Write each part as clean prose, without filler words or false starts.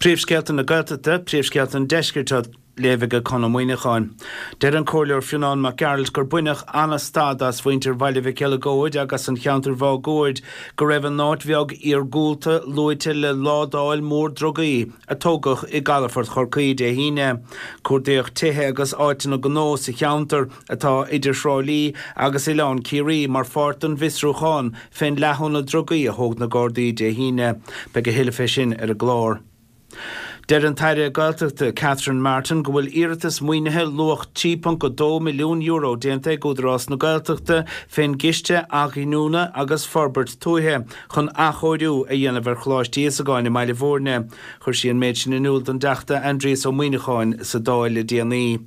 Príomhscéalta na Gaeltachta, Príomhscéalta an Deiscirt á léamh ag Conn Ó Muíneacháin. Deir an Comhairleoir Fionán Mac Gearailt gur baineadh an-stad as mhuintir Bhaile Mhic Eileagóid agus an cheantair mháguaird go raibh a n-áit bheag iargúlta luaite le ládáil mhór drugaí a tógadh i gcalafort Chorcaí Dé hAoine. Cuardaíodh tithe agus áiteanna gnó sa cheantar, atá idir Thrá Lí agus Oileán Ciarraí, mar pháirt den bhfiosrúchán fén leathshóna drugaí a thóg na Gardaí Dé hAoine. Beidh a thuilleadh fé sin ar an gclár. Deir an tAire Gaeltachta Catherine Martin go bhfuil iarratas maoinithe luach €3.2 milliún déanta ag Údarás na Gaeltachta fén gCiste Athghiniúna agus Forbairt Tuaithe chun athchóiriú a dhéanamh ar Choláiste Íosagáin i mBaile Bhúirne. Chuir sí an méid sin in iúl don dTeachta Aindrias Ó Muíneacháin sa Dáil le déanaí.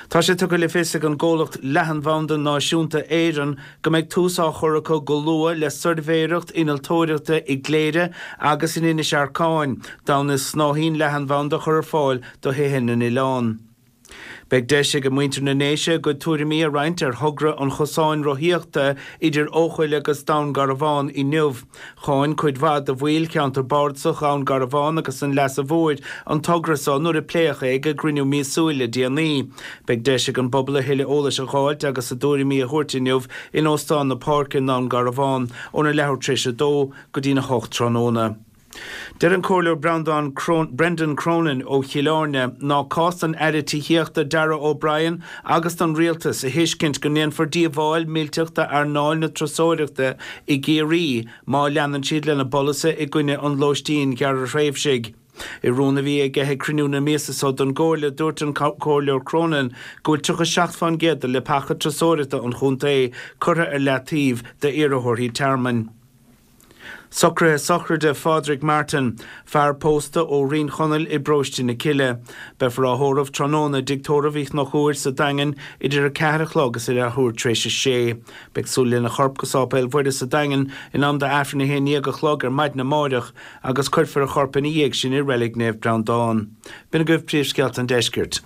Tá sé tugtha le fios ag an gcomhlacht Leathanbhanda Náisiúnta Éireann go mbeidh tús á chur acu go luath le suirbhéireacht innealtóireachta i gCléire agus in Inis Arcáin d'fhonn is snáithín leathanbhanda a chur ar fáil do thithe na n-oileán. Beidh deis ag muintir na nDéise a gcuid tuairimí a roinnt ar thogra an chosáin rothaíochta idir Eochaill agus Dún Garbhán inniu. Cháin cuid mhaith de bhaill cheantar bardasach Dhún Garbhán agus an Leasa Mhóir an togra so nuair a pléadh é ag a gcruinniú míosúil le déanaí. Beidh deis ag an bpobal a thuilleadh eolais a dh'fháilt agus a dtuairimí a thabhairt inniu in Óstán na Páirce i nDún Garbhán óna leathuair tar éis a dó go dtína hocht tráthnóna. Deir an Comhairleoir Breandán Brendan Cronin ó Chill Airne ná cás don Aire Tithíochta Darragh O'Brien agus don Rialtas a thuiscint go ndéanfar díobháil millteach d'earnáil na turasóireachta i gCiarraí má leanann siad lena bpolasaithe i gcoinne an lóistín ghearrthréimhsigh. I rún a bhí aige ag cruinniú na míosa so don gComhairle dúirt an Comhairleoir Cronin go bhfuil 37% de leapacha turasóireachta an chontae curtha ar leataobh d'iarrthóirí tearmainn. Socruithe sochraide Phádraig Martin, fear pósta ó Rinn Chonaill i bParóiste na Cille. Beifear á thórramh tráthnóna i dTigh Tórraimh Uí Chonchúir sa Daingean idir 4 a chlog is a leathuair tar éis a sé. Beidh súil lena chorp go Sáipéal Mhuire sa Daingean in am d'Aifreann 11 a chlog ar maidin amáireach agus cuirfear a chorp ina dhiaidh sin i Reilig Naomh Breandán. B'in agaibh príomhscéalta an deiscirt.